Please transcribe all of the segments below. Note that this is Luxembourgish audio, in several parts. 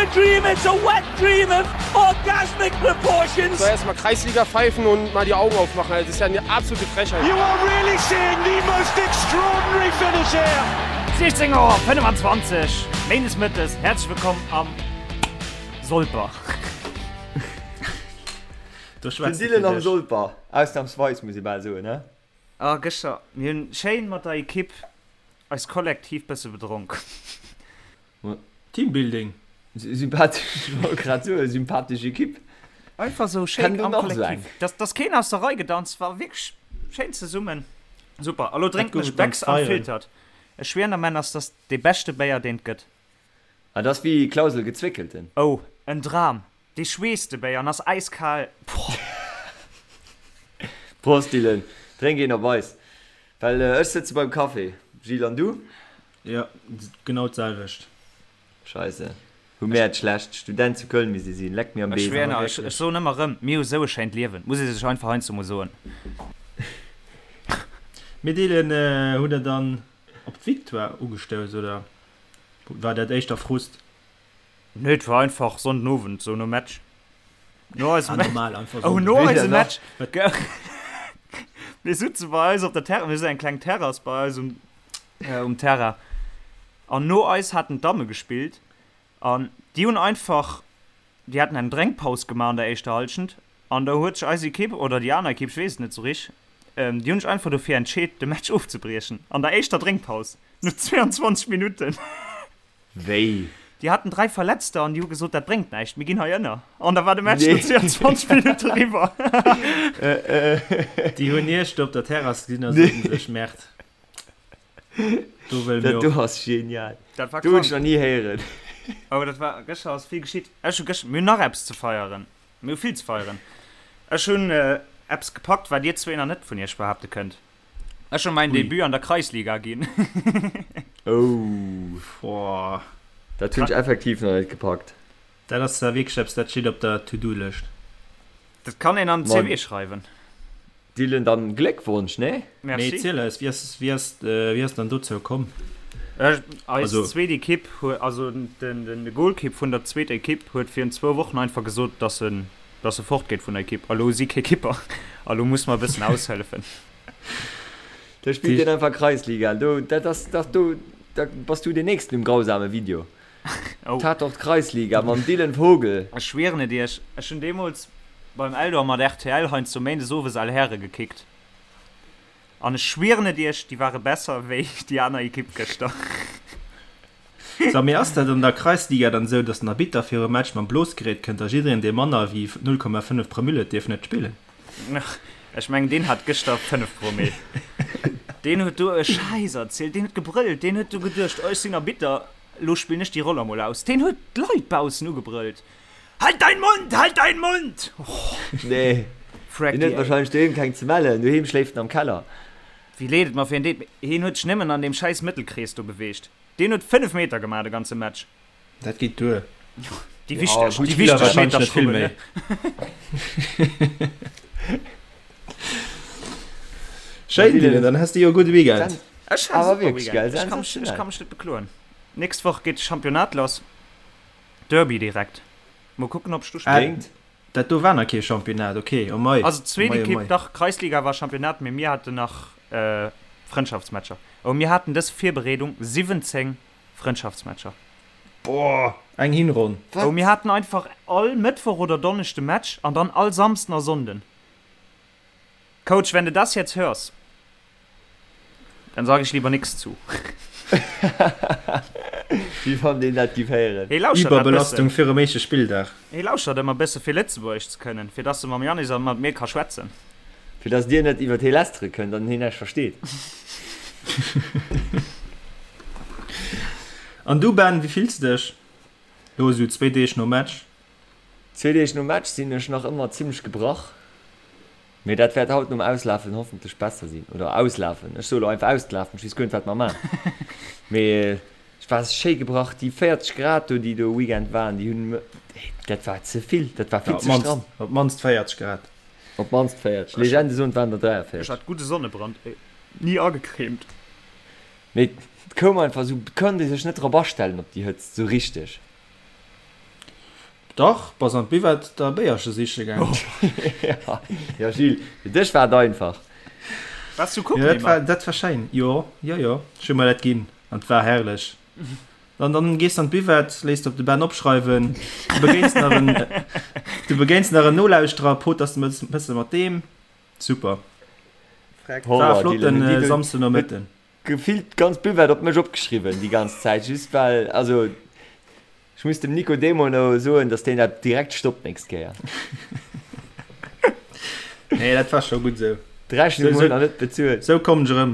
a dream, it's a wet dream of orgasmic proportions. Soll erst mal Kreisliga pfeifen und mal die Augen aufmachen, das ist ja eine absolute Frechheit. You are really seeing the most extraordinary finish here. 16 Auer 25, Méindes Mëttes, häerzlech wëllkomm am Solper. Do schwätzt Den Dylan am Solper, ausnahmsweis muss ee bal soen, he? Ah, gëschter, mir hunn schéin mat der Equipe eis kollektiv bësse bedronk. Teambuilding. Sympathesch, ech wollt grad soen, sympathesch Equipe. Einfach sou schéin am Kollektiv. Dass, dass keen aus der Rei gedanzt war, wierklech schéin zesummen. Super, a lo drénken ech Becks Unfiltered. Ech schwieren der Männer, ass das dee beschte Béier deen et gëtt. Ah, dat ass wéi Klausel gezwéckelten. Oh, en Dram! Dee schweesst de Béier an ass äiskal. Boah. Prost Dylan, drénk een op eis, well ech sëtze beim Café. Gilles, an du? Jo, genau d'selwecht. Scheisse, hu mär et schlecht. Student zu Köln misst ee sinn, leck mir am Ech Besen. schwéier, ech, ech soen ëmmer erëm, mir hu sou e schéint Liewen, muss ee sech einfach heiansdo mol soen. Mir deelen, hutt der dann op d'Victoire ugestouss oder war dat éischter Frust? Nee, et war einfach Sonnden Owend, sou nom Match. No eisem Ah, Match. normal, einfach Oh, Sonnden. no Weder eisem nach. Match. Mir sutze bei eis op der Terrasse, mir hu sou eng kleng Terrass bei eis um, äh, um Terrain. An no eis haten d'Damme gespillt an déi hunn einfach, déi haten eng Drénkpaus gemaach an der éischter Hallschent an da huet sech eis Ekipp oder déi aner Ekipp, ech weess et net sou rich, ähm, déi hunn sech einfach dofir entscheet, de Match ofzebriechen an der éischter Drénkpaus no 22 Minutten. Wéi? Déi haten 3 Verletzter an déi hu gesot, dat bréngt näischt, mir ginn hei ënner. An da war de Match no 22 Minutte riwwer. Déi hunn Iech do op der Terrass gesinn a soten sech, Merde, do wëlle mir Dat do och. ass genial. Dat war Do hunn ech krank. nach ni héieren. Oh, dat war, gëschter ass vill geschitt. Ech hu gëschter, mir hunn nach eppes ze feieren. Mir hu vill ze feieren. Ech hunn eppes gepackt, wat dir zwee nach net vun iech behaapte kënnt. Ech hu mäin Debut an der Kreisliga ginn. Oh, Boah. dat hunn ech effektiv nach net gepackt. Dat ass da wierklech eppes, dat steet op der To-Do-Lëscht. Dat kann een an den Ma CV schreiwen. Dylan, dann Gléckwonsch, nee? Mee Merci. erziel eis, wéi ass, wéi ass, wéi ass dann dozou komm? Ech, eis Also. zweet Ekipp huet, also den, den Golkipp vun der zweeter Ekipp huet virun zwou Wochen einfach gesot, dass en, dass e fortgeet vun der Ekipp. A lo hu si kee Kipper a lo muss mer e bëssen aushëllefen. Da spillt deen einfach Kreisliga. Do, dat ass dach do, da bass du deen nächsten um grausame Video. Oh. Tatort Kreisliga mam Dylan Vogel. Ech schwieren et iech, ech hunn deemools beim Eldor mat rtl heiansdo méindes owes Al Häre gekickt. An ech schwieren et iech, déi ware besser wéi déi aner Ekipp gëschter. So, mee ass dat an der Kreisliga dann esou, dass den Arbitter virum Match mam Blosgerät kënnt a jiddereen, dee manner wéi 0,5 Promille huet, dierf net spillen? Ech mengen, deen hat gëschter 5 Promille. Deen huet do e Schäiss erzielt, deen huet gebrëllt, deen huet do geduecht, oh, ech sinn Arbitter, elo spillen ech déi Roll emol aus. Deen huet d'Leit baussen ugebrëllt, Halt dein Mund, halt dein Mund! Oh, Nee, Freck deen huet déi. wahrscheinlech doheem keng ze mellen, doheem schléift en am Keller. Wéi leed et mer fir en deet, mee hien huet sech nëmmen an deem schäiss Mëttelkrees do beweegt. Deen huet 5 Meter gemaach de ganze Match. Dat geet duer. Déi Ja, wichteg, gutt déi Spiller wichteg wahrscheinlech Meter net vill schrubben, méi. ne? Schéin, Dylan, dann has de jo e gudde Weekend. Ech hat e Awer super wierklech, Weekend. gell? Ech ka mech, ech Sensationell. ka mech net bekloen. Nächst Woch geet de Championnat lass. Derby direkt. Mol kucken, ob ech do Ah, spillen. Bréngt. dat do war nach kee Championnat, ok. Oh mei, Also oh d'zweet mei, oh Ekipp, mei. dach, Kreisliga war Championnat, mee mir haten nach Frëndschaftsmatcher. Oh, mir haten dës Virbereedung 17 Frëndschaftsmatcher. Boah, eng Hinronn. Oh, mir haten einfach all Mëttwoch oder Donneschde Match an dann all Samsden a Sonnden. Coach, wenn du das jetzt hörst, dann sag ich lieber nix zu. Wéi wann deen dat giff héieren. Hee lauschtert dat bëssen. Iwwerbelastung virum éischte Spilldag. Hee lauschtert ëmmer bësse fir Lëtzebuergesch ze kënnen, fir dass e mam Yannis a mat mir ka schwätzen. Fir dass dir net iwwert hee lästere kënnt an heen näischt versteet. An du Ben, wéi fills de dech lo esou zwéi Deeg nom Match? Zwee Deeg nom Match sinn ech nach ëmmer zimmlech gebrach, mee dat wäert haut nom Auslafen hoffentlech besser sinn. Oder auslafen, ech soe lo einfach ausgelafen, ech weess guer net wat mer man. Mee ech war schéi gebrach, déi 40 Grad do déi do Weekend waren, déi hunn, dat war ze vill, dat war Ja, vill op ze d'mannst, stramm. op d'mannst 40 Grad. Op d'mannst 40, Legende soen et waren der Ech 43. hat gudde Sonnebrand, ey, ni agecremt. Mee et koum einfach esou, et konnt ee sech net drop astellen op déi Hëtzt esou richteg. Dach, bass an d'Buvette der e Béierche siche gaang. Jo Gilles, fir dech war et einfach. Waars du kucken, Emma? Dat war schéin, jo, jo, jo, ech hu mer dat ginn an et war herrlech. An dann gees de an d'Buvette, léiss de op de Ben opschreiwen, du begéins nach en, du begéins nach en Nolauschterer, poters e bësse mat deem. Super. War e flotten Samsdenomëtten. Gefillt d'ganz Buvette op mech opgeschriwwen déi ganz Zäit, just well, also ech muss dem Nico Demono soen, dass deen dat direkt stoppt nächst Kéier. Nee, dat war scho gutt esou. D'Rechnung huet nach net bezuelt. Sou kommen ech erëm.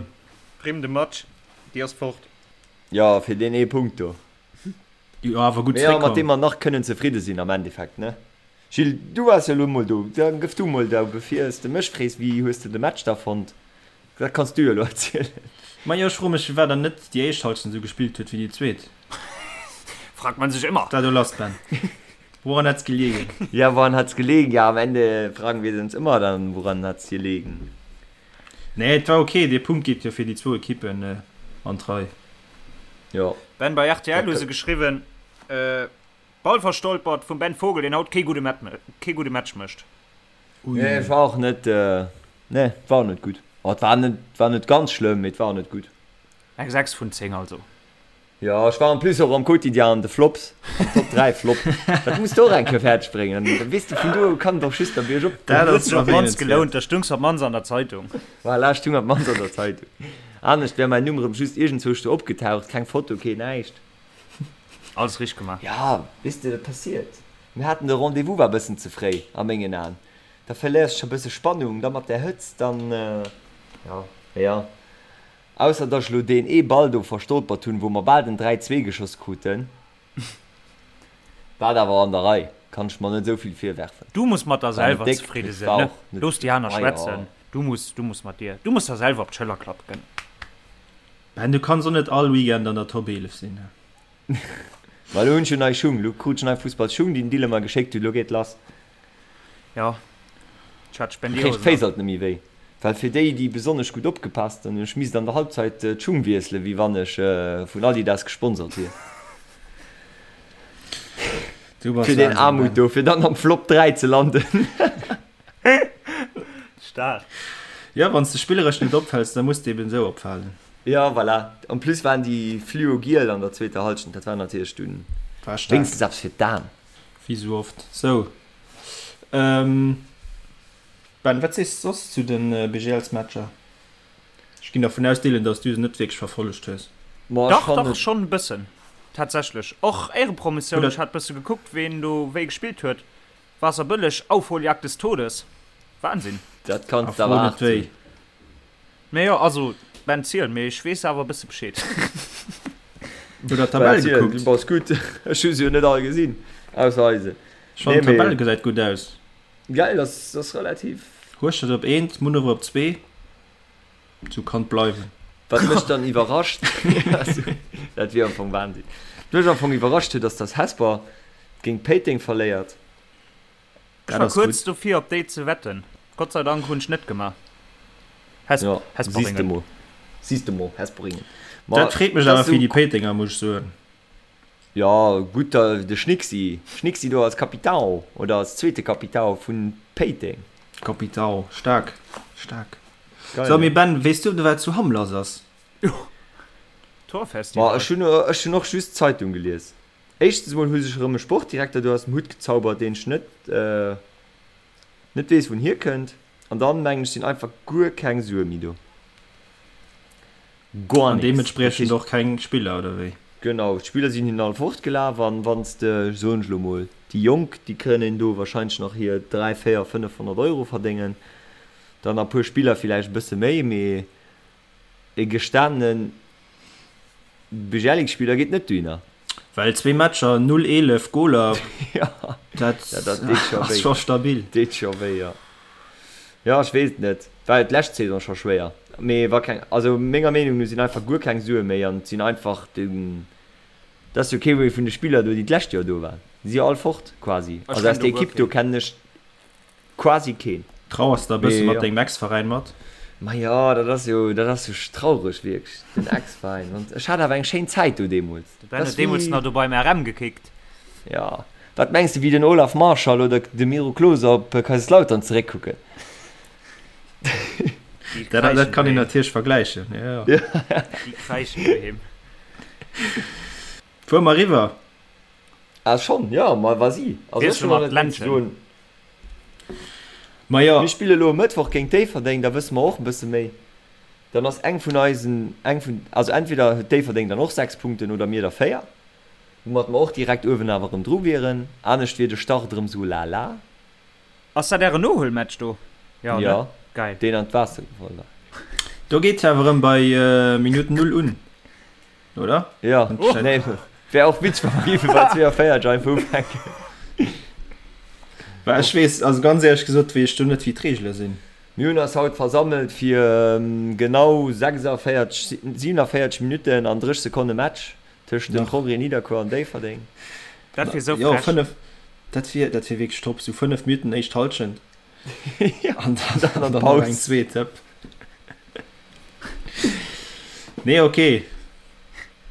Prime de Match, déi ass fort. Jo, fir deen ee Punkt do. Jo, awer gutt Mee jo, mat zréckkomm. deem mer nach kënnen zefridde sinn am Endeffekt, ne? Gilles, du waars jo elo mol do, da gëff du mol da, bevir s de mech frees, wéi hues de de Match da fonnt? Dat kanns du jo elo erzielen. Majo, ech froe mech firwat dann net déi éischt Halschent esou gespillt huet wéi déi zweet. Fragt man sich immer. Dat do lass, Ben. Woran hat's gelegen? Ja, woran hat's gelegen? Ja, am Ende fragen wir uns immer dann, woran hat's gelegen? Nee, et war ok, dee Punkt geet jo fir déi zwou Ekippen an d'Rei. Jo. Ben, bei rtl hu se geschriwwen, Ball verstolpert vum Ben Vogel, deen haut kee gudde kee gudde Match mécht. Ui. Nee, et war och net, nee, et war och net gutt. Oh, et war net, et war net ganz schlëmm, mee et war och net gutt. Eng 6 vun 10 also. Jo, ech war en plus och am Quotidien an de Flops, am Top 3 Flop. Dat muss de och eng Kéier fäerdeg bréngen, dann weess de, vun do u kann et och just der biergop Dat goen. ass Huet sech op d'mannst erwähnenswäert. gelount, da stungs op d'mannst an der Zeitung. Voilà, ech stung op d'mannst an der Zeitung. Anescht wär mäin Numm erëm just iergendzwousch do opgetaucht, keng Foto, keen näischt. Alles richteg gemaach. Ja, weess de, dat passiert. Mir haten de Rendez-vous war bëssen ze fréi a mengen Aen. Da verléiers de scho bësse Spannung, da mat där Hëtzt, dann, jo, mee jo. Ausser dass ech lo deen ee Ball do verstolpert hunn, wou mer bal den 3, 2 geschoss kruten. War awer an der Rei, kann ech mer net esou vill virwerfen. Du muss mat der War net selwer déck, zefridde mee sinn, war ne? och net, Looss déi aner ah jo. schwätzen. Du muss, du muss mat dir, du muss der selwer op d'Schëller klappen. Ben, du kanns och net all Weekend an der Top 11 sinn. Ma lo hunn ech jo nei Schung, lo krut ech nei Fussballsschung, déi den Dylan mer geschéckt huet, lo geet lass. Jo, ech hat Da kréich Spendierhosen d'Féiss an. alt net méi wéi. Well fir déi, déi besonnesch gutt opgepasst hunn, ech misst an der Halbzeit d'Schung wiesselen, wéi wann ech vun Adidas gesponsert wier. Du bass Fir deen Wahnsinn, Aarmut Ben. do, fir dann am Flop 3 ze landen. Staark. Jo, wann s de spilleresch net opfäls, da muss de eben esou opfalen. Jo, voilà. En plus waren déi fluo-giel an der zweeter Halschent, dat war natierlech dunn War staark. wéinstens eppes fir d'Aen. Wéi sou oft. Sou. Ben, wat sees de soss zu de BGLs-Matcher? Ech ginn dervun aus, Dylan, dass du se net wierklech verfollegt hues. Ma ech Dach, fannen dach, et. schonn e bëssen. Tatsächlech. Och Éirepromotioun, Oder ech hat bësse gekuckt, ween do wéi gespillt huet. Waasserbëlleg, Aufholjagd des Todes. Wahnsinn. Dat a kanns de fro awer net haart wéi. sinn. Mee jo, also Ben ziel, mee ech weess awer e bësse Bescheed. Hutt der d'Tabell Ben ziel, du gekuckt? bass gutt. Ech hu se jo net all gesinn, ausser eise. Ech fannen Nee, mee d'Tabell gesäit gutt aus. geil, ass ass relativ. Hueschtert op eent, Munneref op zwee. Sou kann et bleiwen. Wat mech dann iwwerrascht, dat wier am Fong Wahnsinn. Wat mech am Fong iwwerrascht huet, ass dass Hesper géint Péiteng verléiert. Ech Dat war ass kuerz gutt. dofir op déi ze wetten. Gott sei Dank hunn ech net gemaach. Hes Ja, siehst de Hesperingen. mol. Siehst de mol, Hesperingen. Ma Dat freet mech dat awer ass fir esou déi Péitenger, muss ech soen. Ja, gutt, da de Schnicksi. Schnicksi do als Capitão oder als zweete Capitão vun Péiteng. Capitão, staark, staark. Geil, So, mee ne? Ben, weess du, wat zu Hamm lass ass? Ma Torfestival. ech hunn, ech hunn och just d'Zeitung gelies. Éischtens emol hu sech erëm e Sportdirekter do aus dem Hutt gezaubert, deen ech net, net weess, wou en hierkënnt. An dann, mengen ech, sinn einfach guer keng Sue méi do. Guer An nix. Dat deementspriechend heescht. och keng Spiller, oder wéi? Genau, d'Spiller sinn hinnen all fortgelaf. An wann s de, soen ech elo mol, déi Jonk, déi kënnen do wahrscheinlech nach hir 3, 4, 500 Euro verdéngen. Dann a puer Spiller villäicht e bësse méi, mee e gestanene Bjellik-Spiller geet net dohinner. Well zwee Matcher, 0, 11 Goler, Ja, dat ja, dat deet scho ass wéi. scho stabil. Deet scho wéi, jo. Jo, ech weess et net. War jo d'lescht Saison scho schwéier. Mee wa keng, also menger Meenung no sinn einfach guer keng Sue méi an et sinn einfach den, et ass jo kee méi vun de Spiller do, déi d'lescht Joer do waren. Déi si jo all fort quasi. Ech Also aus kennen der do guer Ekipp do keen. kennen ech Quasi keen. Trauers de e bësse Mee mat jo. dengem Ex-Veräin mat? Ma jo, dat ass jo, dat ass jo traureg wierklech, den Ex-Veräin. An ech hat awer eng schéin Zäit do deemools. De Ben Dat huet ass deemools wéi, nach do beim RM gekickt. jo. Wat mengs de wéi den Olaf Marschall oder de Miro Klose op Kaiserslautern zeréckkucken? Dat, dat kann een natierlech vergläichen, jo, jo. Déi kräischen doheem. Fuere mer eriwwer? Ah schonn, jo, ma vas-y. Also ech Wiessele hunn mer nach net méi ze d'Ländchen. soen. Ma jo. Mir spille elo e Mëttwoch géint Déifferdeng, da wësse mer och e bësse méi. Dann ass eng vun eisen, eng vun, also entweder huet Déifferdeng dann och 6 Punkten oder mir der 4, woumat mer och direkt uewen awer erëm dru wieren. Anescht wier de Start erëm sou lala. Ass dat ären Nohuelmatch do? Jo, ne? Jo, Geil. deen an d'Waasser gefall war. Do geet jo awer erëm bei Minutt 0 un, oder? Jo, nee, wär och witzeg, wa mer géife bei 42 einfach ufänken. Well ech weess, also ganz éierlech gesot, weess ech do net, wéi d'Reegele sinn. Mir hunn eis haut versammelt fir genau 46, 47 Minutten an 30 Sekonne Match tëscht dem Progrès Nidderkuer an Déifferdeng. Dat wier sou Jo, frech. 5, dat wier, dat wier wierklech top, sou 5 Minutten éischt Halschent an dann, Dann an dann Paus. nach eng zweet, hëpp. Nee, okay,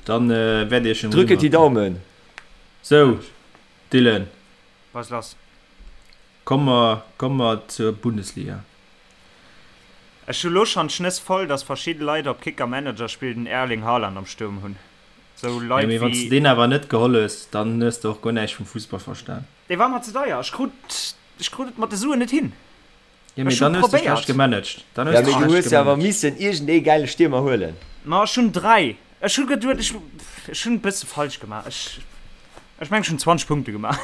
dann wäert Iech Drücket die Daumen! Sou, Dylan. Was lass? Komme mer, komme mer zur Bundesliga. Ech hu lo schon d'Schnëss voll, dass verschidde Leit op Kicker Manager Spill den Erling Haaland am Sturm hunn. Sou Jo, Leit mee wann s de wéi. deen awer net geholl hues, dann hues de och guer näischt vum Fussball verstan. Dee war mer ze deier. Ech krut, ech krut et mat de Suen net hin. Jo, mee Ech hu dann hues de schlecht probéiert. gemanagt. Dann Ja, hues de mee du schlecht hues jo awer gemanagt. missen iergend ee gäile Stiermer huelen. Ma ech hunn 3. Ech hu geduet, ech, ech hunn e bësse falsch gemaach. Ech, ech mengen, ech hunn 20 Punkte gemaach.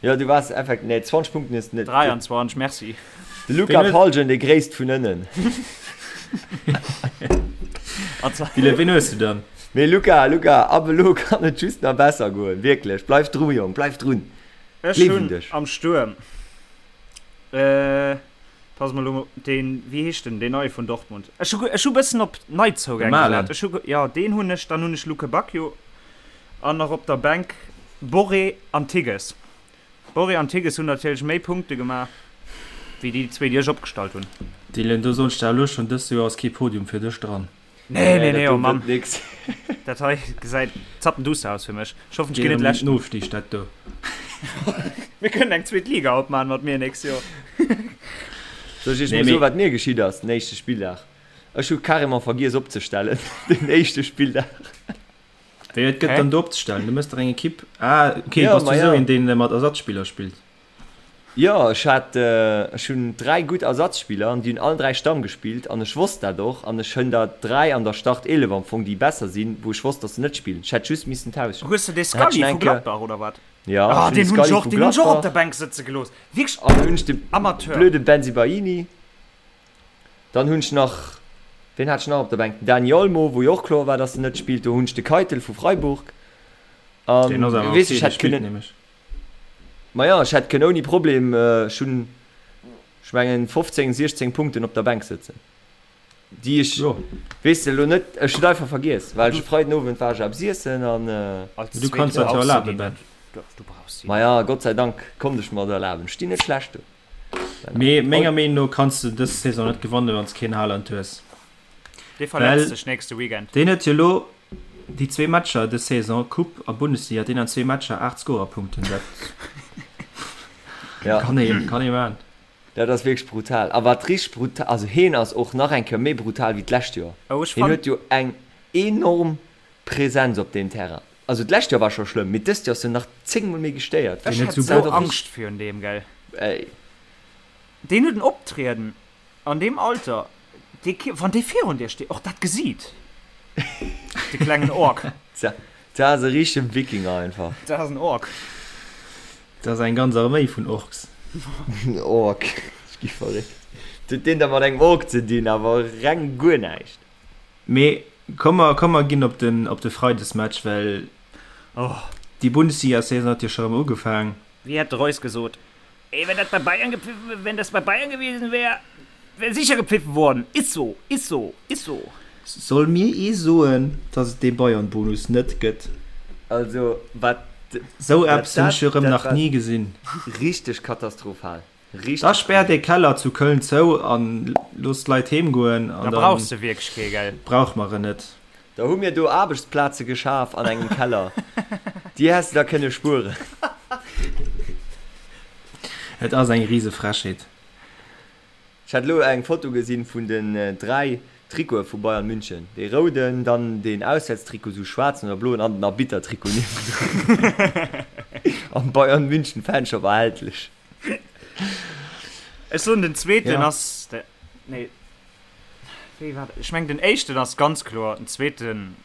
Jo, du waars effekt, nee, 20 Punkten hues de net. 23, merci. De Luca Palgen, dee gréisst vun ënnen. Dylan, ween hues du dann? Mee Luca, Luca, ab elo kann et just nach besser goen, wierklech. Bleif dru, Jong, bleif drun. Ech Gleef un hunn dech. am Stuerm, äh, pass mol elo, deen, wéi heescht den, deen neie vun Dortmund? Ech hu, ech hu bëssen op De Neizougäng Malen. gesat. Ech hu, jo, deen hunn ech, dann hunn ech Lukebakio an nach op der Bänk Borré an Tigges. Borré an Tigges hunn natierlech méi Punkte gemaach wéi déi zwee, déi ech opgestallt hunn. Dylan, do soen ech der elo schonn, dëst Joer ass kee Podium fir dech dran. Nee, nee, nee, dat oh do Mann. gëtt nix. Dat hei gesäit zappenduster aus fir mech. Ech hoffen, ech Geet ginn net erëm ëm Leschten. den Ofstig, dat do. Mir kënnen eng zweet Liga opmachen mat mir nächst Joer. Soll ech iech Nee, mol mee. soen, wat mir geschitt ass den éischte Spilldag? Ech hu carrément vergiess opzestellen den éischte Spilldag. Wéi et gëtt Hä? dann do opzestellen? Du mëss der eng Ekipp. Ah, okay, Ja, bass du ma esou ja. een, deen mat Ersatzspiller spillt? Jo, ech hat, ech hunn 3 gutt Ersatzspiller an déi hunn allen 3 Stamm gespillt an ech wosst dat och an ech hunn der 3 an der Startelef am Fong, déi besser sinn, wou ech wosst, dass se net spillen. Ech hätt just missen tauschen. Hues de dee Dann hat ech Scully nach vu eng Kéier, Gladbach oder wat? jo, Ah, ech hunn de deen hunn ech Scully och, vu deen hunn ech och op Gladbach der Bänk sëtze gelooss. Wierklech an dann hunn ech de Amateur. blöde Bensebaini. Dann hunn ech nach, ween hat ech nach op der Bänk? Den Dani Olmo, wou jo och kloer war, dass en net spillt. Do hunn ech de Keitel vu Freiburg an, Deen ass awer weess okay, ech dee hätt spillt kënnen, nämlech. Maja, ech hätt kënnen ouni Problem, ech hunn, ech mengen, 15, 16 Punkten op der Bänk sëtzen, déi ech, Jo. weess de, elo net, ech hunn et einfach vergiess, well ech e Freiden Owend war ech eppes iessen an. Als Du kanns Zweete dat jo brauchs du erlaben, déi Ben. net. Du brauchs déi net. Maja, Gott sei Dank konnt ech mer et erlaben. Ech stinn net schlecht do. Mee menger Meenung no kanns de dës Saison net gewannen, wann s keen Haaland hues. Dee verletzt Well sech nächste Weekend. deen huet jo elo déi zwee Matcher dës Saison, Coupe a Bundesliga, deen an zwee Matcher 8 Scorerpunkten. Dat Ja. kann ee kann ee man. Dat ass wierklech brutal. A wat richteg brutal, also heen ass och nach eng Kéier méi brutal wéi d'lescht Joer. Oh, ech Heen fann. huet jo eng enorm Präsenz op deem Terrain. Also d'lescht Joer war scho schlëmm, mee dëst Joer ass en nach 10 mol méi gestéiert. Ech Deen huet hätt sou sou Angscht virun deem, gell. Ey. Deen huet en Optrieden an deem Alter, dee, wann dee virun dir steet, och dat Gesiit, de klengen Ork. Tja, dat ass e richtegen Wikinger einfach. Dat ass en Ork. Dat ass eng ganz Arméi vun Orks. En Ork, ech gi verréckt. Wat huet deen da mat engem Ork ze dinn? Awer reng guer näischt. Mee komm mer, komm mer ginn op den, op de Freidesmatch, well déi Bundesliga-Saison huet jo scho rëm ugefaang. Wéi hätt de Reus gesot, Ey, wenn dat bei Bayern gepfiffen, wenn das bei Bayern gewesen wär, wär sicher gepfiffen worden. Ist so, ist so, ist so. Soll mir ee soen, dass et dee Bayern-Bonus net gëtt? Also wat Sou eppes hunn dat ech jo rëm dat nach war ni gesinn. richteg katastrophal. Richteg Da späert brutal. ee Keller zu Köln zou an loosst d'Leit heem goen Da an dann brauchs de wierklech kee, gell? brauche mer en net. Da hu mir do Aarbechtsplaze geschaf an engem Keller. Déi häss de der kënne spueren. Et ass eng rise Frechheet. Ech hat elo eng Foto gesinn vun den 3 Trikote vu Bayern München. Dee rouden, dann deen Auswäertstrikot, sou schwaarzen oder bloen an den Arbittertrikot niewendrun. Am Bayern München Fanshop erhältlech. Ech soen den zweeten ass de, nee wéi war dat, ech mengen den éischten ass ganz kloer, den zweeten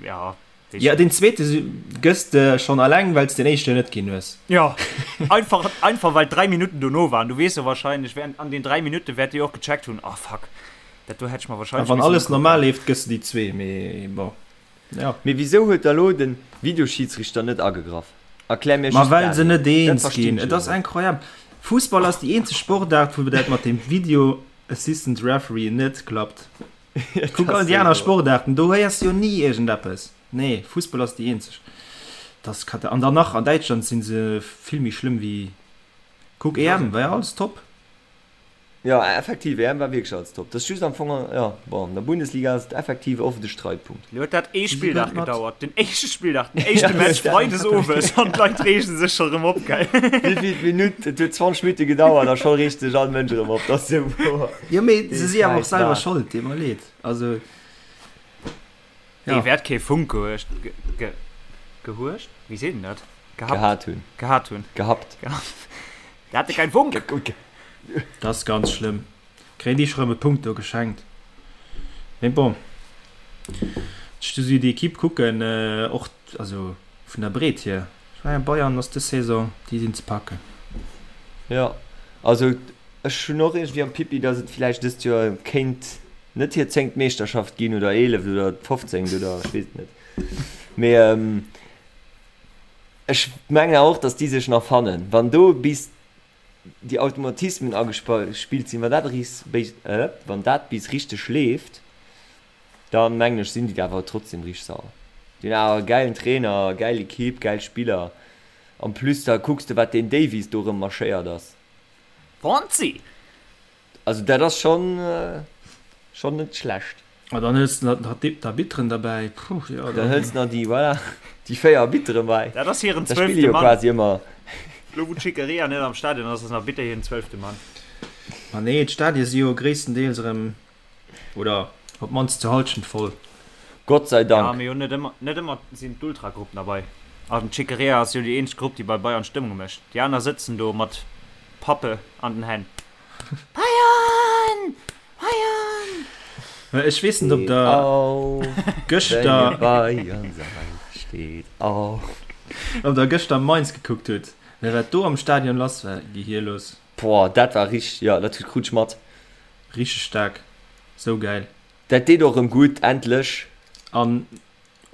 ja. Jo, deen zweete gëss de schonn alleng, well s den éischten net ginn hues. Jo, einfach, einfach well 3 Minutten dono waren. Du weess jo wahrscheinlech, während an den 3 Minutte wäert Dir och gecheckt hunn, ah fuck, dat do hätt ech mer A wahrscheinlech wann missen alles ukucken. normal leeft, gëss de déi zwee, mee bon, jo. Mee wisou huet da lo den Videoschidsrichter net agegraff? Erklär mir Ma just well dat se elo. net Dat eens verstinn ginn. ech Et elo ass net. incroyable. Fussball ass déi eenzeg Sportaart, wou dat mat dem Video Assistant Referee net klappt. Kuck all déi aner Sportaarten, do héiers de jo ni iergendeppes. Nee, Fussball ass déi eenzeg. Dat ass kata. An dann nach an Däitschland si se vill méi schlëmm wéi. Kuck EM, war jo alles top. Jo, effektiv, EM war wierklech alles top. Dat ass just am Fong, jo, bon, an der Bundesliga ass et effektiv oft e Streitpunkt. Lo huet dat ee Spilldag gedauert, den éischte Spilldag, den éischte Match freides owes an d'Leit reegen sech scho rëm op, gell? Wéivill Minutt? Et huet 20 Minutte gedauert a scho reegt sech all Mënsch erëm op. Dat ass esou wouer. Jo mee se si awer och selwer Schold, deet mer leed. Also ja. Dee wäert kee Funk gehuecht, ge, ge, gehuecht? Wéi seet een dat? Gehabt. Gehat hunn. Gehat hunn. Gehabt. Der hatte kein Funk. Dat ass ganz schlëmm. Kréien déi scho rëm e Punkt do geschenkt. Mee bon, ech du si déi Equipe kucken, och also vun der Breet hier, ech mengen Bayern ass dës Saison, déi sinn ze packen. Jo, also Ech hunn och iergendwéi am Pipi, datt et villäicht dëst Joer kéint net hir zéngt Meeschterschaft ginn oder eeleft oder fofzéngt oder ech weess et net. Mee ech mengen awer och, datt déi sech nach fannen. Wann do bis déi Automatismen agespillt sinn, wann dat eris, wann dat bis richteg leeft, da mengen ech sinn déi awer trotzdem richteg sauer. Déi hunn awer e gäilen Trainer, gäil Ekipp, gäil Spiller. En plus da kucks de wat deen Davies do erëm marschéiert ass. Fonzi! Also dat ass schon schon net schlecht. A dann hëls de nach d'Arbitteren derbäi, puh, jo dann. Dann hëls de nach déi, voilà, déi 4 Arbitteren bei. Dat ass hiren zwölfte Mann. Da spille jo quasi ëmmer. Lo wou d'Schickeria net am Stadion ass, ass den Arbitter hiren zwölfte Mann. Ma nee, d'Stadie si jo gréisstendeels erëm Oder op d'mannst zur Halschent voll. Gott sei Dank. Ja, mee jo net ëmmer, net ëmmer sinn d'Ultragruppen derbei. An d'Schickeria ass jo déi eenzeg Grupp, déi bei Bayern Stëmmung mécht. Déi aner sëtzen do mat Pappe an den Hänn. Bayern! Bayern! Mä ech weess net, ob der gëschter. Bayern seid, steet auf. Ob der gëschter Mainz gekuckt hutt. Mä wat do am Stadion lass war, gehierlos. Boah, dat war richteg, jo, dat krut ech mat. Richteg staark, sou gäil. Dat deet och rem gudd, endlech. An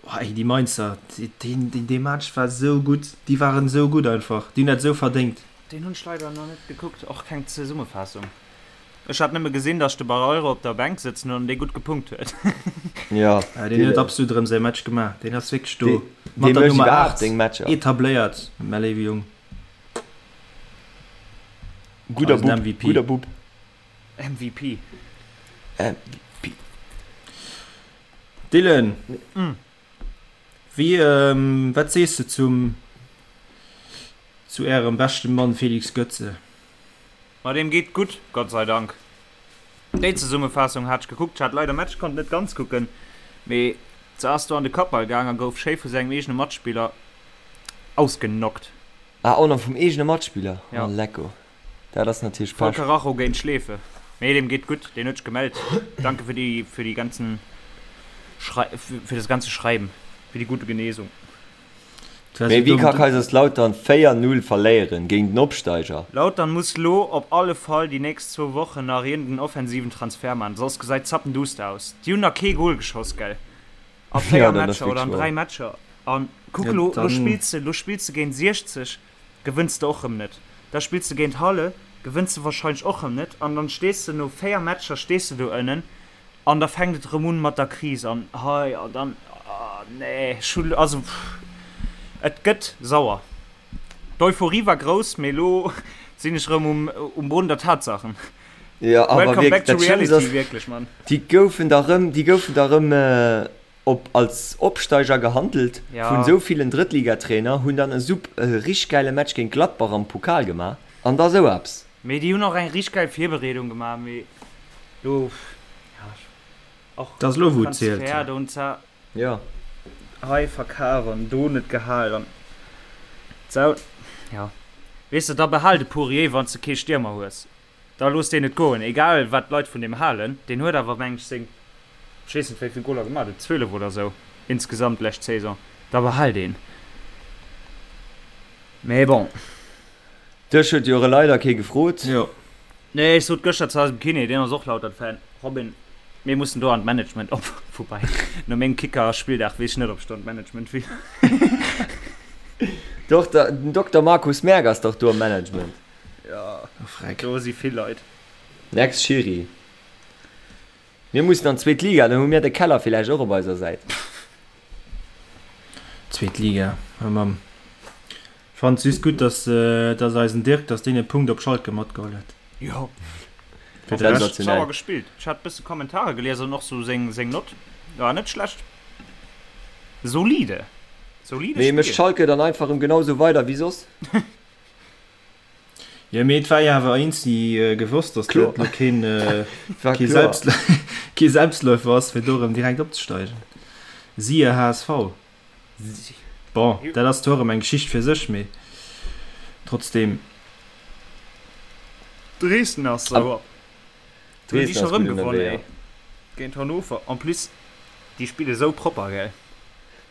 oh ey, déi Mainzer, deen dee Match war sou gutt, déi waren sou gutt einfach, déi hunn dat sou verdéngt. Deen hunn ech leider nach net gekuckt, och keng Zesummefaassung. Ech hat nëmme gesinn, dass de Barreiro op der Bänk sëtzen huet an dee gutt gepunkt huet. Jo, Deen huet absolut erëm säi Match gemaach, deen ass wierklech do mat der Nummer 8 etabléiert, mäi léiwe Jong. Gudder Bub, gudder Bub. MVP. MVP. Dylan, wéi, wat sees de zum, zu ärem beschten Mann Felix Götze? Ma deem geet gutt, Gott sei Dank. Déi Zesummefaassung hat ech gekuckt. Ech hat leider Match, konnt net ganz kucken, mee se ass do an de Kappball gaang a gouf schéi vu sengem eegene Matspiller ausgeknockt. Ah, och nach vum eegene Matspiller? Oh, lecko. Dat ass natierlech Voll Karacho géint Schleefe. Mee deem geet gutt, deen huet sech gemellt. Danke fir déi, fir déi ganzen Schrei, fir das ganze Schreiben, fir die gute Genesung. Mee wéi ka Kaiserslautern 4, 0 verléieren géint den Opsteiger? Lautern muss lo op alle Fall déi nächst zwou Wochen nach iergend en offensiven Transfer man, soss gesäit zappenduster aus. Déi hunn nach kee Goal geschoss, gell? A 4 Matcher oder an 3 Matcher. An kuck lo, lo spills de, lo spills de géint 60. Gewënns de och rëm net. Da spills de géint Halle, gewënns de wahrscheinlech och rëm net an dann stees de no 4 Matcher stees de do ënnen an da fänkt et rëm un mat der Kris an hei an dann, ah nee, ech hu, also et gëtt sauer. D'Euphorie war grouss, mee elo sinn ech rëm um um Boden der Tatsachen. Jo, awer Welcome wierklech, back to dat Schlëmmst reality, ass, wierklech, Mann. déi goufen da rëm, déi goufen da rëm op als Opsteiger gehandelt vun Ja. esou villen Drëttligatrainer, hunn dann e sup e richteg gäile Match géint Gladbach am Pokal gemaach. An da sou eppes. Mee déi hunn och eng richteg geil Virbereedung gemaach, mee lo, ja, och Dat ass elo wou et zielt. Transfer do hunn se Jo. hei verkaf an do net gehal an sou, jo. Weess de, da behal de Pourier, wann s de kee Stiermer hues. Da looss deen et goen, egal wat d'Leit vun deem halen. Deen huet awer, meng ech, seng, ech weess net wéi vill Goler gemaach huet, 12 oder sou insgesamt lescht Saison. Da behal deen. Mee bon. Dech huet jo leider kee gefrot. Jo. Nee, ech sot gëschter zu eisem Kiné, deen ass och Lautern-Fan, Robin, mir mussen do an d'Management op. Woubäi, no mengem Kicker-Spilldag weess ech net, ob ech do an d'Management will. Doch, den Dokter Markus Merk ass dach do am Management. Jo, Freck. do si vill Leit. Next Schiri. Mir mussen an d'zweet Liga, dann hu mir de Keller villäicht och op eiser Säit. Zweet Liga, oh Mamm. Fannt just gutt, dass, dass eisen Dirk, dass deen e Punkt op Schalke matgeholl huet. Jo. Fir de Rescht. Sauer gespillt. Ech hat bësse Kommentare gelies an och sou seng, seng Nott war net schlecht. Solide. Solide Mee mécht Spill. Schalke dann einfach erëm genau sou weider wéi soss? Jo, mee et war jo awer eenzi gewosst, datt Kloer. dat lo keen, War kee kloer. Selbst, kee Selbstläufer ass, fir do erëm direkt opzesteigen. Siehe HSV. Bon, dat ass zwar erëm eng Geschicht fir sech, mee trotzdem. Dresden ass sauer. Hunn déi Dresden scho ass rëm gutt gewonnen, ënnerwee, ey. jo. Géint Hannover. En plus, déi spille sou propper, gell.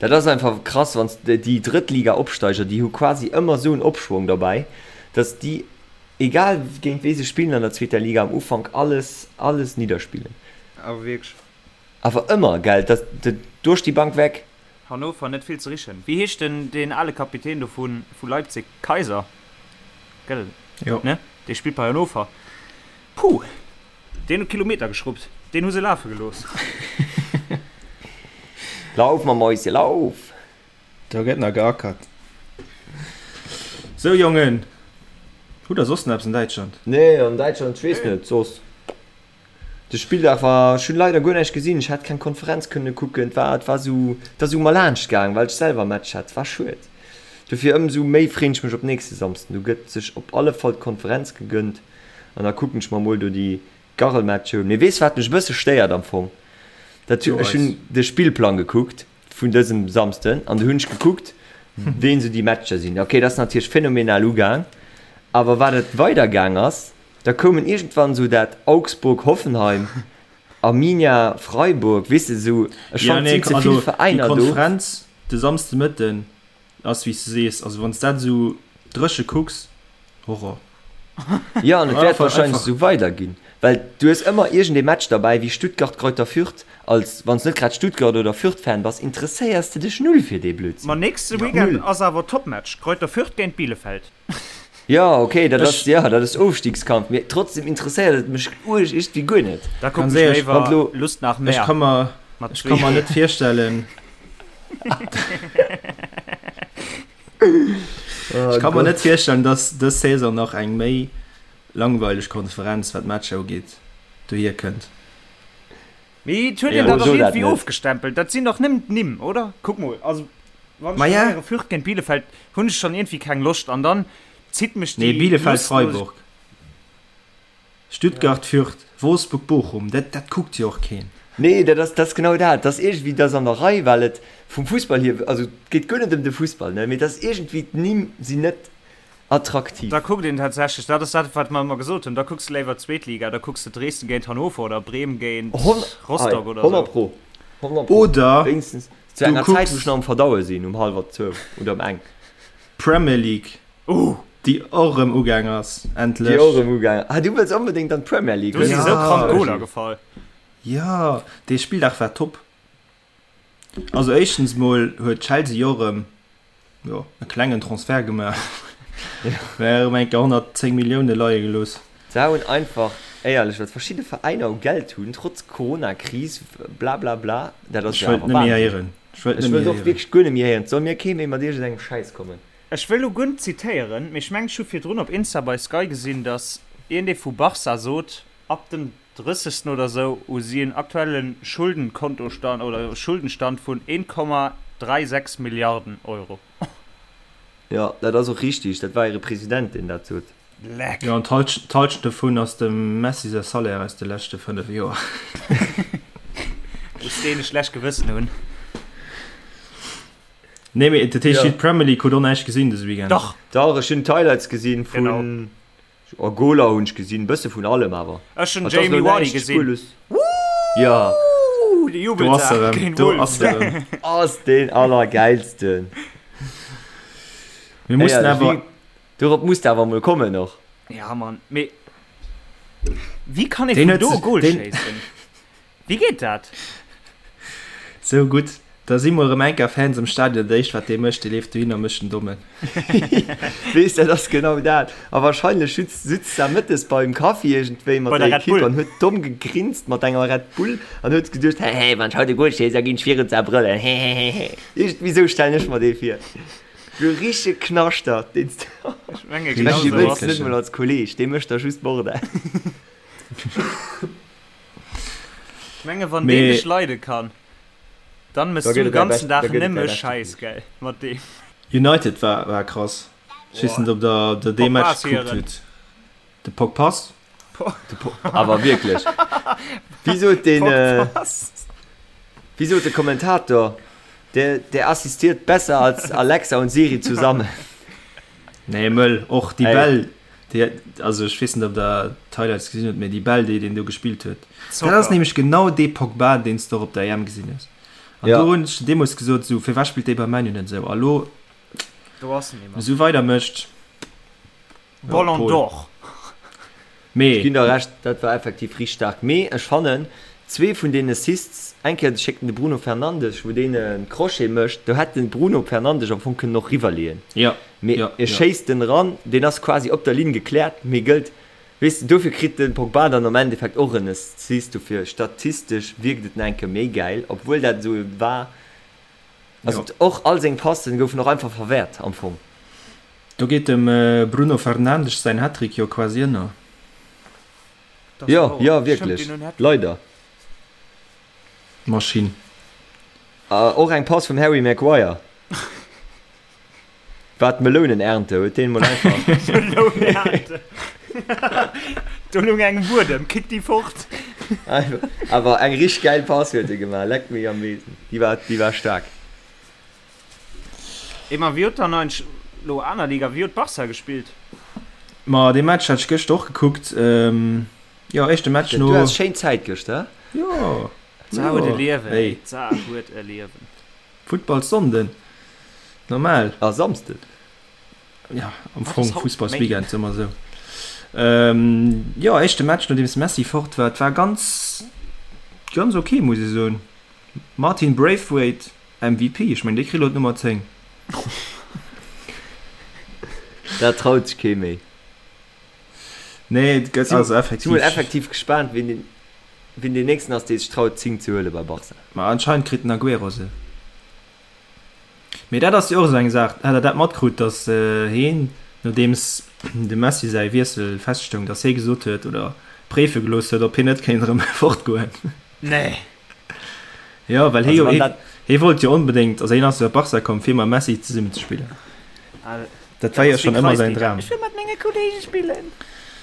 Dat ass einfach krass, wann s de déi Drëttliga-Opsteiger, déi hu quasi ëmmer esou en Opschwong derbäi, datt déi, egal géint wee se spillen an der zweeter Liga, am Ufank alles, alles nidderspillen. Awer wierklech. Awer ëmmer, gell, dat duerch déi Bank weg. Hannover net vill ze richen. Wéi heescht den deen ale Kapitän do vu vu Leipzig? Kaiser, gell? Jo. Ne? Dee spillt bei Hannover. Puh! Deen huet Kilometer geschrubbt. Deen hu se lafe gelooss. Lauf, ma Mäuschen, lauf! Do gëtt nach geackert. Sou Jongen, hutt der soss nach eppes an Däitschland? Nee, an Däitschland, ech weess net, soss. De Spilldag war, ech hunn leider guer näischt gesinn, ech hat keng Konferenz kënne kucken, et war, et war sou, et ass u mer laanscht gaang, well ech selwer Match hat, et war schued. Dofir ëmsou méi freen ech mech op nächste Samsden, do gëtt sech op alle Fall d'Konferenz gegënnt an da kucken ech mer mol do déi Garrelmatcher un. Mee weess wat mech e bësse stéiert am Fong? Dat, ech hunn de Spillplang gekuckt vun dësem Samsden an du hunn ech gekuckt, ween sou déi Matcher sinn. Ok, dat ass natierlech phänomenal ugaang, awer wat et weider gaang ass, Da koumen iergendwann esou dat Augsburg-Hoffenheim, Arminia-Freiburg, weess de, esou, ech Ja, fannen, nee, et sinn ze also vill déi Veräiner do. Konferenz de Samsdemëtten ass, wéi s de sees, also wann s dat esou dréche kucks, Horror. Jo, an et wäert Einfach, wahrscheinlech einfach. esou weiderginn, well du hues ëmmer iergendee Match derbäi wéi Stuttgart-Greuther Fürth, als wann s net grad Stuttgart oder Fürth-Fan bass, interesséiers de dech null fir dee Ma Blödsinn. nächste Weekend Null. ass awer Topmatch, Greuther Fürth géint Bielefeld. Jo, ok, dat ass, Ech. jo, dat ass Ofstiegskampf, mee trotzdem interesséiert et mech uerg iergendwéi guer net. Da kucken Ganz ech éierlech, Wann léiwer lo. Lust nach Ech mehr ka mer, mat ech zwee ka mer G. net virstellen, Oh ech ka mer net Gott. virstellen, dass dës Saison nach eng méi langweileg Konferenz, wat d'Matcher ugeet, dohier kënnt. Mee et huet een Éierlech. dat Oh, och so dat iergendwéi net. ofgestempelt. Dat sinn dach nëmmen d'Nimm, oder? Kuck mol, also wann ech Ma dann ja. héiere Fürth géint Bielefeld, hunn ech schonn iergendwéi keng Loscht an dann zitt mech Nee, déi Bielefeld, Lustlos. Freiburg, Stuttgart, Fürth, Wolfsburg, Bochum, dat, dat kuckt jo och keen. Nee, dat ass, dat ass genau dat. Dat ass iergendwéi, dat ass an der Rei, well et vum Fussball hier, also et geet guer net ëm de Fussball, ne, mee et ass iergendwéi, d'Nimm sinn net attraktiv. Da kuckt een tatsächlech, dat ass dat, wat mer ëmmer gesot hunn, da kucks de léiwer d'Zweetliga, da kucks de Dresden géint Hannover oder Bremen géint Rostock oder 100 esou. pro, 100 pro. Oder Wéinstens zu du enger Zäit, wou ech kucks nach am Verdaue sinn, um hallwer zwou oder um eng. Premier League, Uh! déi och erëm ugaang ass, Déi endlech. och erëm ugaang. Ah, du wëlls onbedéngt an d'Premier League, Do si hues sou krank de? Goler gefall. Jo, dee Spilldag war top. Also éischtens mol huet Chelsea jo erëm jo, e klengen Transfert gemaach. Mä erëm eng Kéier 110 Millioune leie gelooss. Se hunn einfach, éierlech, wat verschidde Veräiner u Geld hunn, trotz Corona-Kris, blablabla, dat ass Ech jo wëllt awer net méi Wahnsinn. héieren. Ech wëllt Ech net méi wëllt och héieren. wierklech guer net méi héieren. Et soll mir kee méi mat iergendengem Schäiss kommen. Ech wëll lo guer net zitéieren, mee ech mengen ech hu virdrun op Insta bei Sky gesinn, datt iergendee vu Barca sot, ab dem 30. oder sou hu si en aktuelle Schuldenkontostand oder Schuldenstand vun Leck. Jo, an d'Halschent dovun ass dem Messi säi Salaire aus de leschte 5 Joer. Muss deen e schlecht Gewëssen hunn. Nee, mee dat heescht, d'Premier League hutt och näischt gesinn dëse Weekend? Dach! Dach, ech hunn d'Highlights gesinn vun. Oh, Goler hunn ech gesinn, bësse vun allem awer. Ech hunn Jamie Vardy gesinn. Jo. De Jubeltag géint Wolves. Ass deen allergäilsten. Mir mussen awer. Dorop muss de awer mol kommen och. Ja Mann, mee wéi kann ee vun do e Goal schéissen? Wéi geet dat? Sou gutt, da si mol erëm enker Fans am Stadion, dat éischt wat dee mécht, dee leeft dohin a mécht den Dommen. Weess, dat ass genau dat. A wahrscheinlech sutz sutz da mëttes beim Kaffi iergendwéi mat Bei der der Red Equipe Bull. an huet domm gegrinst mat enger Red Bull an huet geduecht, Hehe, wann ech haut e Goal schéiss, da ginn ech virun zerbrëllen, hehehehe. Iergendwéi sou stellen ech mer dee vir. Sou richtege Knaschtert, deen s de. Ech menge Dee genau sou wëlls ass de net et. mol als Kolleeg, dee mécht der just Bordell. Ech menge wann deen dech leide kann, dann mëss Da du gëtt de et däi ganzen bescht, da Dag gëtt et däi nëmme beschte Schäiss, Kolleeg. gell, mat deem. United war war krass. Ech weess net ob der der dee Pogba Match ass gekuckt hiren. hutt. De Pogpass? De Po awer wierklech. Wéi sot deen, Pogpass. wéi sot de Kommentator, der der assistiert besser als Alexa und Siri zusammen. Nee mëll, och déi Ey. Bäll déi, also ech weess net ob der d'Highlights gesinn hutt, mee déi Bäll déi deen do gespillt huet, dat ass Zocker. nämlech genau dee Pogba deen s de och op der EM gesinn hues. An Ja. do hunn ech deemools gesot, esou firwat spillt dee bei Man U net esou? A lo, Do ass en wann nimmer. esou weider mécht, ja, Ballon Paul. d'Or. Ech Mee ginn der Recht, dat war effektiv richteg staark. Mee ech fannen, zwee vun den Assists, eng Kéier schéckt en de Bruno Fernandes, wou deen e Crochet mécht, do hätt de Bruno Fernandes am Fong kënnen och riwwerleeën. ja, Mee ja, e ja. schéisst en eran, deen ass quasi op der Linn gekläert, mee gëllt, weess de, dofir kritt de Pogba dann am Endeffekt och en Assist, dofir statistesch wierkt et nach eng Kéier méi gäil, obwuel dat esou war. Also Jo. och all seng Passen goufen och einfach verwäert am Fong. Do geet dem Bruno Fernandes säin Hattrick jo quasi ënner. Jo, jo, wierklech. Leider. Maschinn. Och eng Pass vum Harry Maguire. War d'Melounenernte, huet deen mol einfach. Melounenernte. Do lung eng um Buedem, kick déi fort. Awer eng richteg gäil Pass huet e gemaach, leck mech am Besen. Déi war, déi war staark. Ey ma wéi huet dann eigentlech lo aner Liga, wéi huet Barca gespillt? Ma dee Match hat ech gëschter och gekuckt. Jo, éischte Match no. Du has schéin Zäit gëschter, he? Jo, D'Sa huet e jo, Liewen, ey, ey. d'Sa huet e Liewen. Futtballsonnden, normal. A Samsden. Ja, am Wat Fong ass haut? Fussballsweekend, soe mer esou. Jo, éischte Match nodeems Messi fort war. Et war ganz, ganz ok, muss ech soen. Martin Braithwaite, MVP, ech mengen dee kritt elo d'Nummer 10. Dat traut sech kee méi. Nee, et gëtt also effektiv. Si mol effektiv gespaant, wien den, wien deen nächsten ass, dee sech traut d'Zing ze huele bei Barca. Ma anscheinend kritt den Aguero se. Mee dat ass jo och esou eng Saach, hat der dat matkrut, datt heen, nodeems dem Messi säi Wiessel feststoung, datt hee gesot huet oder préife gelooss huet, ob hien net kéint erëm fortgoen? Nee. Jo, well hie jo, hie wollt jo onbedéngt, also hien ass jo op Barca komm, fir mam Messi zesummen ze spillen. Dat war jo schonn ëmmer säin Dram. Ech wëll mat menge Kolleege spillen.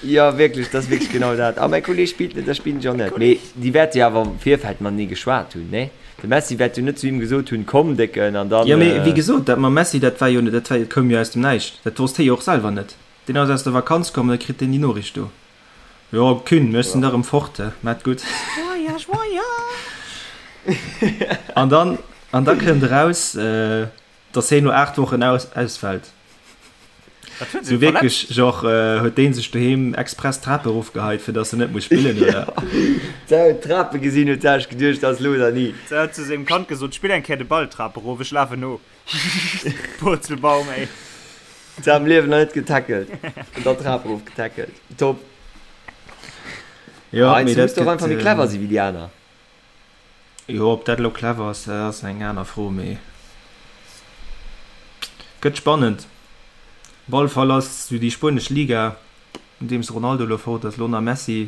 Jo, wierklech, dat ass wierklech genau dat. A mäi Kolleeg spillt net, da spillen ech och net. Mee déi wäerte jo awer am Virfeld matenee geschwat hunn, nee? De Messi wäert jo net zu him gesot hunn, Komm, Décken, an dann. Jo, mee wéi gesot, dat mam Messi, dat war jo, dat war, dat koum jo aus dem Näischt. Dat wosst hie jo och selwer net. Deen ass aus der Vakanz komm an da kritt deen déi Noriicht do. Jo, Kühn, ech sinn da rëm fort, he, maat gutt. Voyage, voyage! An dann, an da kënnt eraus, dass heen no 8 Wochen aus, ausfällt. Wat huet Sou sech wierklech, verletzt? genre, huet deen sech doheem express d'Trape erofgeheit, fir dass en net muss spillen, oder? Ja, huet d'Trape gesinn, huet sech geduecht, dass elo oder ni. Se huet zu sengem Kand gesot, Spill eng Kéier de Ball d'Trap erof, ech lafen no. Purzelbaum, ey. Se am Liewen nach net getackelt an dann d'Trap erof getackelt. Top. Jo, Ah, mee du muss dat doch gëtt, einfach méi clever si wéi déi aner. Jo, ob dat elo clever ass, dat ass eng aner Fro, mee gëtt spannend. Op alle Fall ass esou déi spuenesch Liga, nodeems Ronaldo elo fort ass, elo nach Messi.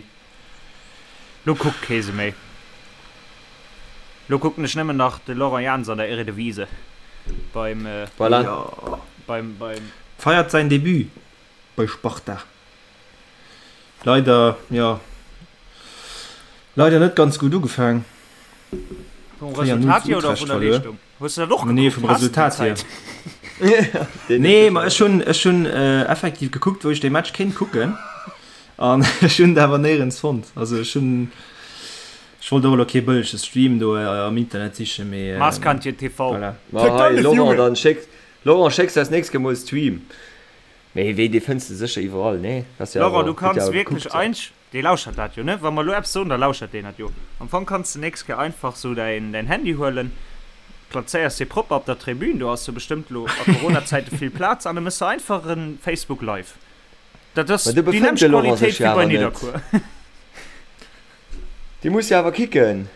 Lo kuckt kee se méi. Lo kucken ech nëmmen nach de Laurent Jans an der Eredivisie beim Voilà. Jo. beim beim. Feiert säin Debut bei Sparta. Leider, jo, leider net ganz gutt ugefaang. Vum Resultat hier oder vun der Leeschtung? Hues du dat och Nee, gekuckt? vum Has du déi Resultat hier. Zäit? Nee, ma ech hunn, ech hunn effektiv gekuckt, wou ech dee Match kéint kucken an ech hunn et awer néierens fonnt. Also ech hunn, ech wollt och elo kee bëllege Stream do am Internet sichen, mee Maaskantje TV. voilà. Ma hei, Laurent, dann schéck, Laurent, schécks eis nächst Kéier mol e Stream. Mee wéi, dee fënns de sécher iwwerall, nee? Ass jo Laurent, du awer, huet jo kanns awer wierklech gekuckt. Einsch, dee lauschert dat jo, ne? Wa mer elo eppes soen, da lauschert deen dat jo. Am Fong kanns de nächst Kéier einfach sou däin, däin Handy huelen, plazéiers dee propper op der Tribün, do ass jo bestëmmt elo a Corona-Zäite vill Plaz, an da méchs de einfach e Facebook Live. Dat ass Ma do déi befënnt nämmlecht de Laurent sech Qualitéit jo wéi bei awer net. Nidderkuer. Dee muss jo awer kicken.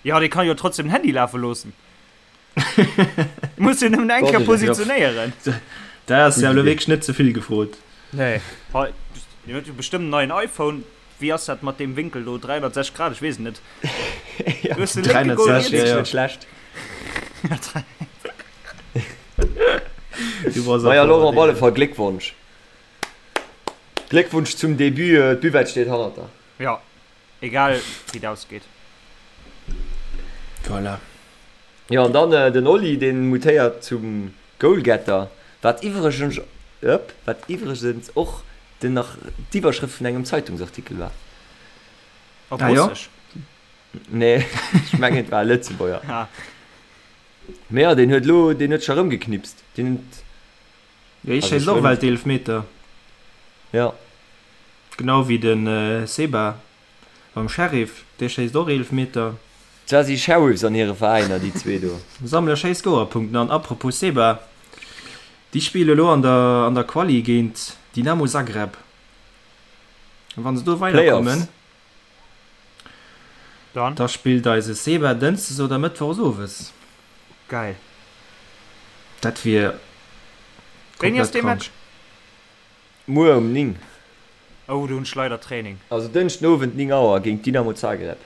Jo, dee kann jo trotzdem den Handy lafe loossen. Muss jo nëmmen eng Kéier positionéieren. Dat ass jo elo wierklech net ze vill gefrot. Nee. Hei, deen huet jo bestëmmt en neien iPhone. Wéi ass dat mat deem Wénkel do? 360 Grad? Ech weess et net. Ja, Du hues de lénke Goal 360, riets. ja, ja. Net schlecht. Du bass Maja, och Laurent, op alle Deen. Fall Gléckwonsch. Gléckwunsch zum Debut. D'Buvette steet hannert der. Ja, egal wéi et ausgeet. Voilà. Jo, an dann den Oli, deen mutéiert zum Goalgetter, wat iwwregens, ëpp, wat iwwregens och den nach d'Iwwerschrëft vun engem Zeitungsartikel war. Op Ah jo? Russesch? Nee, ech mengen et war e Lëtzebuerger. Ah. Mee jo, deen huet elo, deen huet scho erëmgeknipst, deen huet. Jo, hie Also schéisst ech och wëll. Welteelfmeter. Ja. Genau wéi de Seba beim Sheriff, dee schéisst och Eelefmeter. Zwar si Sheriffs an hire Veräiner, déi zwee do. Sammele schéi Scorerpunkten an apropos Seba, déi spille elo an der an der Quali géint Dynamo Zagreb. A wann se do weiderkommen, Dann? da spillt eise Seba dënschdes oder mëttwochs owes. Geil. Dat wier Wéini ass komplett dee krank. Match? Muer um 9. Oh, do hunn ech leider Training. Also Dënschden Owend 9 Auer géint Dynamo Zagreb.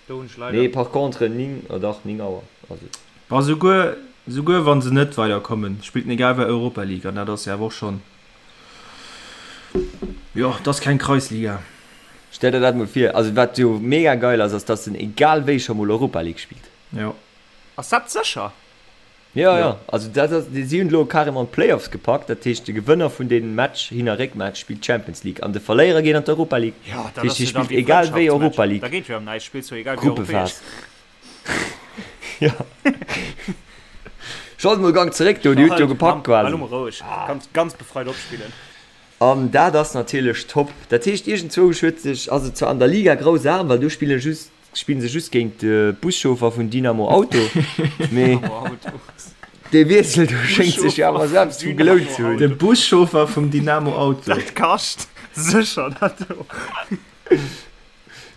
Do hunn ech leider. Nee, par contre 9, oh dach 9 Auer ass et. Bon, souguer, souguer wa se net weiderkommen, spillt en egal wei Europa League an dat ass jo awer och schonn, jo, dat ass keng Kreisliga. Stell der dat mol vir. Also wat jo mega geil ass, ass dass en egal wéi scho mol Europa League spillt. Jo. Ass dat sécher? Jo, jo, also dat ass, si hunn elo carrément d'Playoffs gepackt, dat heescht de Gewënner vun deem Match, Hin a Réckmatch, spillt d'Champions League an de Verléierer geet an d'Europa League. Jo, Dat dat heescht, ass hie jo da spillt wéi egal wéi Frëndschaftsmatch. Europa Da League, geet jo ëm näischt, spills jo egal wéi europäesch. Gruppephas. Jo. Schallt mol Gang zeréck do, Dir hutt jo gepackt Hal quasi. mol roueg, kanns ganz befreit opspillen. An dat ass natierlech top. Dat heescht, iergendzwousch huet sech, ass et zwar an der Liga grausam, well do spille just Spillen se just géint de Buschauffer vun Dynamo Auto, mee dee Wiessel do schéngt sech jo awer selbst vu gelount ze hunn. De Buschauffer vum Dynamo Auto. Dat kascht sécher dat do.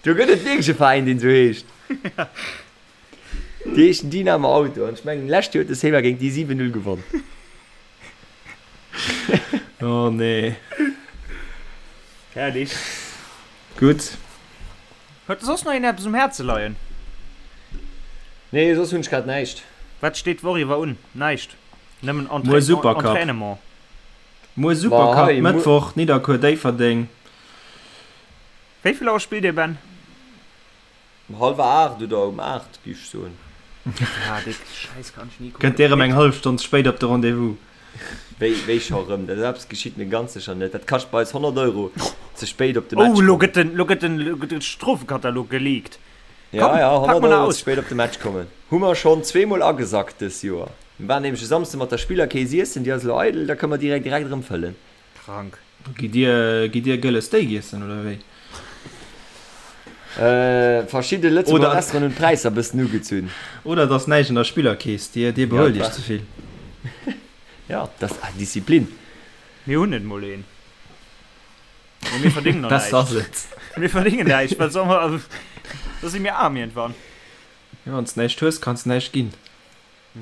Do gëtt et wierklech e Veräin deen esou heescht. Déi heeschen Dynamo Auto an ech mengen lescht Joer huet de Seba géint déi 7, 0 gewonn. Oh nee. Herrlich. Gutt. Huet soss nach een eppes um Häerze leien? Nee, soss hunn ech grad näischt. Wat steet d'Woch iwwer un? Näischt. Nëmmen Muer Supercup. Entraînement. Muer Ma Supercup, hei, muer. Mëttwoch, Nidderkuer-Déifferdeng. Wéi vill Auer spillt Dir, Ben? Um hallwer 8 oder um 8, géif ech soen. Ah, dee Schäiss kann ech ni Kënnt kucken. Dir erëm eng hallef Stonn ze spéit op de Rendez-vous? Wéi, wéi scho rëm? Dat eppes geschitt mir ganz sécher net. Dat kascht bei eis 100 Euro, ze spéit op de Match Oh, lo kommen. gëtt den, lo gëtt den, lo gëtt den Strofekatalog geleakt. Ja, Komm, ja, pak 100 mol nach Euro ze aus. spéit op de Match kommen. Hu mer schonn zweemol agesackt dës Joer. Mir waren nämlech e Samsde mat der Spillerkeess iessen, déi ass elo eidel, da kënne mer direkt direkt erëm fëllen. Krank. Gitt Dir, gitt Dir gëlle Steak iessen oder wéi? Verschidde Lëtzebuerger Oder- Restauranten hunn d'Präisser bëssen ugezunn. Oder et ass näischt an der Spillerkeess, Dir, Dir Ja, behuelt Iech dat ze vill. Ja, dat ass Disziplin. Mir hunn net mol een. Mee mir verdéngen och Besser ass näischt. et. Mir verdéngen näischt, wat soll mer, also, da si mir aarm iergendwann. Jo, wann s näischt hues, kanns näischt ginn.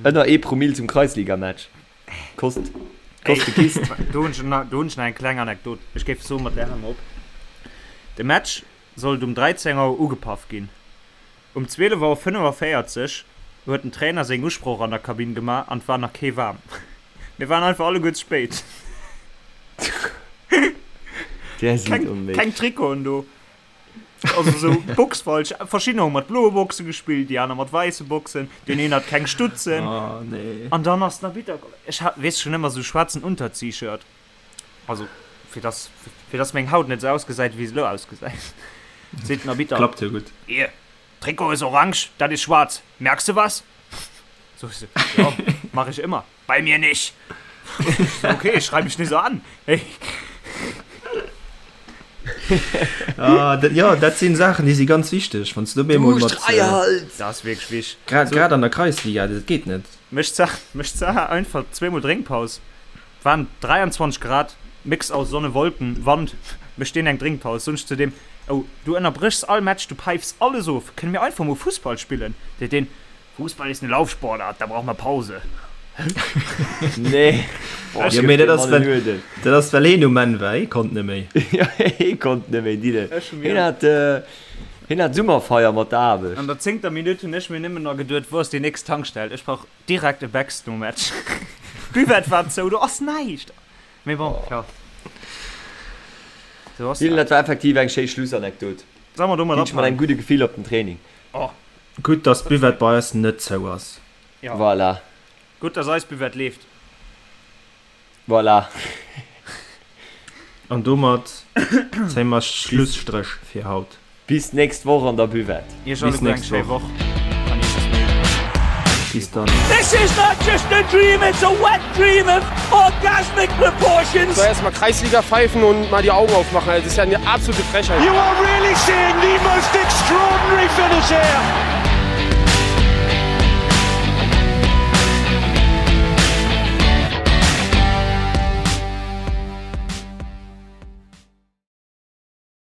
Ënner ee Promille zum Kreisligamatch. Kost, kost de Kist. Do hunn ech nach, do hunn ech nach eng kleng Anekdot. Ech géif soen, mat där hale mer op. De Match sollt um 13 Auer ugepaff ginn. Um 12 Auer 45 huet den Trainer seng Usproch an der Kabinn gemaach an et war nach kee waarm. Mir waren einfach alleguer ze spéit. Där sinn Keng, onméiglech. keng Trikoten do. Also sou Box falsch. Verschiddener hu mat bloe Boxe gespillt, déi aner mat wäisse Boxen. Deen een hat keng Stutzen. Oh nee. An dann ass den Arbitter komm. Ech hat, weess schon ëmmer sou schwaarzen Unterziehshirt. Also fir dass, fir dass meng Haut net sou ausgesäit wéi se elo ausgesäit. Seet den Arbitter. Klappt jo gutt. Hier, Trikot ist orange, dat ist schwarz. Merkst du was? So, ich so, ja, mach ich immer. Bei mir nicht. So, okay, schrei mich nicht so an. Hey. Ah, dat, ja, dat sinn Saachen, déi si ganz wichteg, wann s du op eemol mat. Halt! Das ass wierklech wichtig. Grad, grad an der Kreisliga, dat geet net. Mécht d'Saach, mécht d'Saach einfach zweemol Drénkpaus. Waren 23 Grad, Mix aus Sonne, Wolken, Wand. Mécht deen eng Drénkpaus. Soen ech zu deem, Oh, du ënnerbréchs all Match, du päifs alles of, kënne mir einfach mol Fussball spillen? Seet deen, Fußball ist eine Laufsportart, da braucht man Pause. Nee. Boah, Ja, mee dat ass, well, dat ass well heen um Enn war, hee konnt net méi. Ja, hee konnt net méi, Dille. Ech hu Heen mir hat, äh, heen hat Summerfeier mat der Aarbecht. an der zéngter Minutt hunn ech mir nëmmen nach geduet, wou ass déi nächst Tankstell? Ech brauch direkt e Becks nom Match. D'Buvette war zou, do ass näischt. Mee bon, ja. Sou ass Dylan, dat. dat war effektiv eng schéi Schlussanekdot. Solle mer domat Ginn ech mat ophalen? engem gudde Gefill op den Training. Oh. Gutt, dass d'Buvette bei eis net zou ass. Ja. Voilà. Gutt, dass eis Buvette leeft. Voilà. An domat zéie mer Schlusstréch fir haut. Bis nächst Woch an der Buvette. Iech Bis alleguer eng nächst schéi Woch. Woch an iech bis méi. Bis dann. This is not just a dream, it's a wet dream of orgasmic proportions. So, erstmal Kreisliga pfeifen und mal die Augen aufmachen. Also, das ist ja eine absolute Frechheit. You are really seeing the most extraordinary finish here.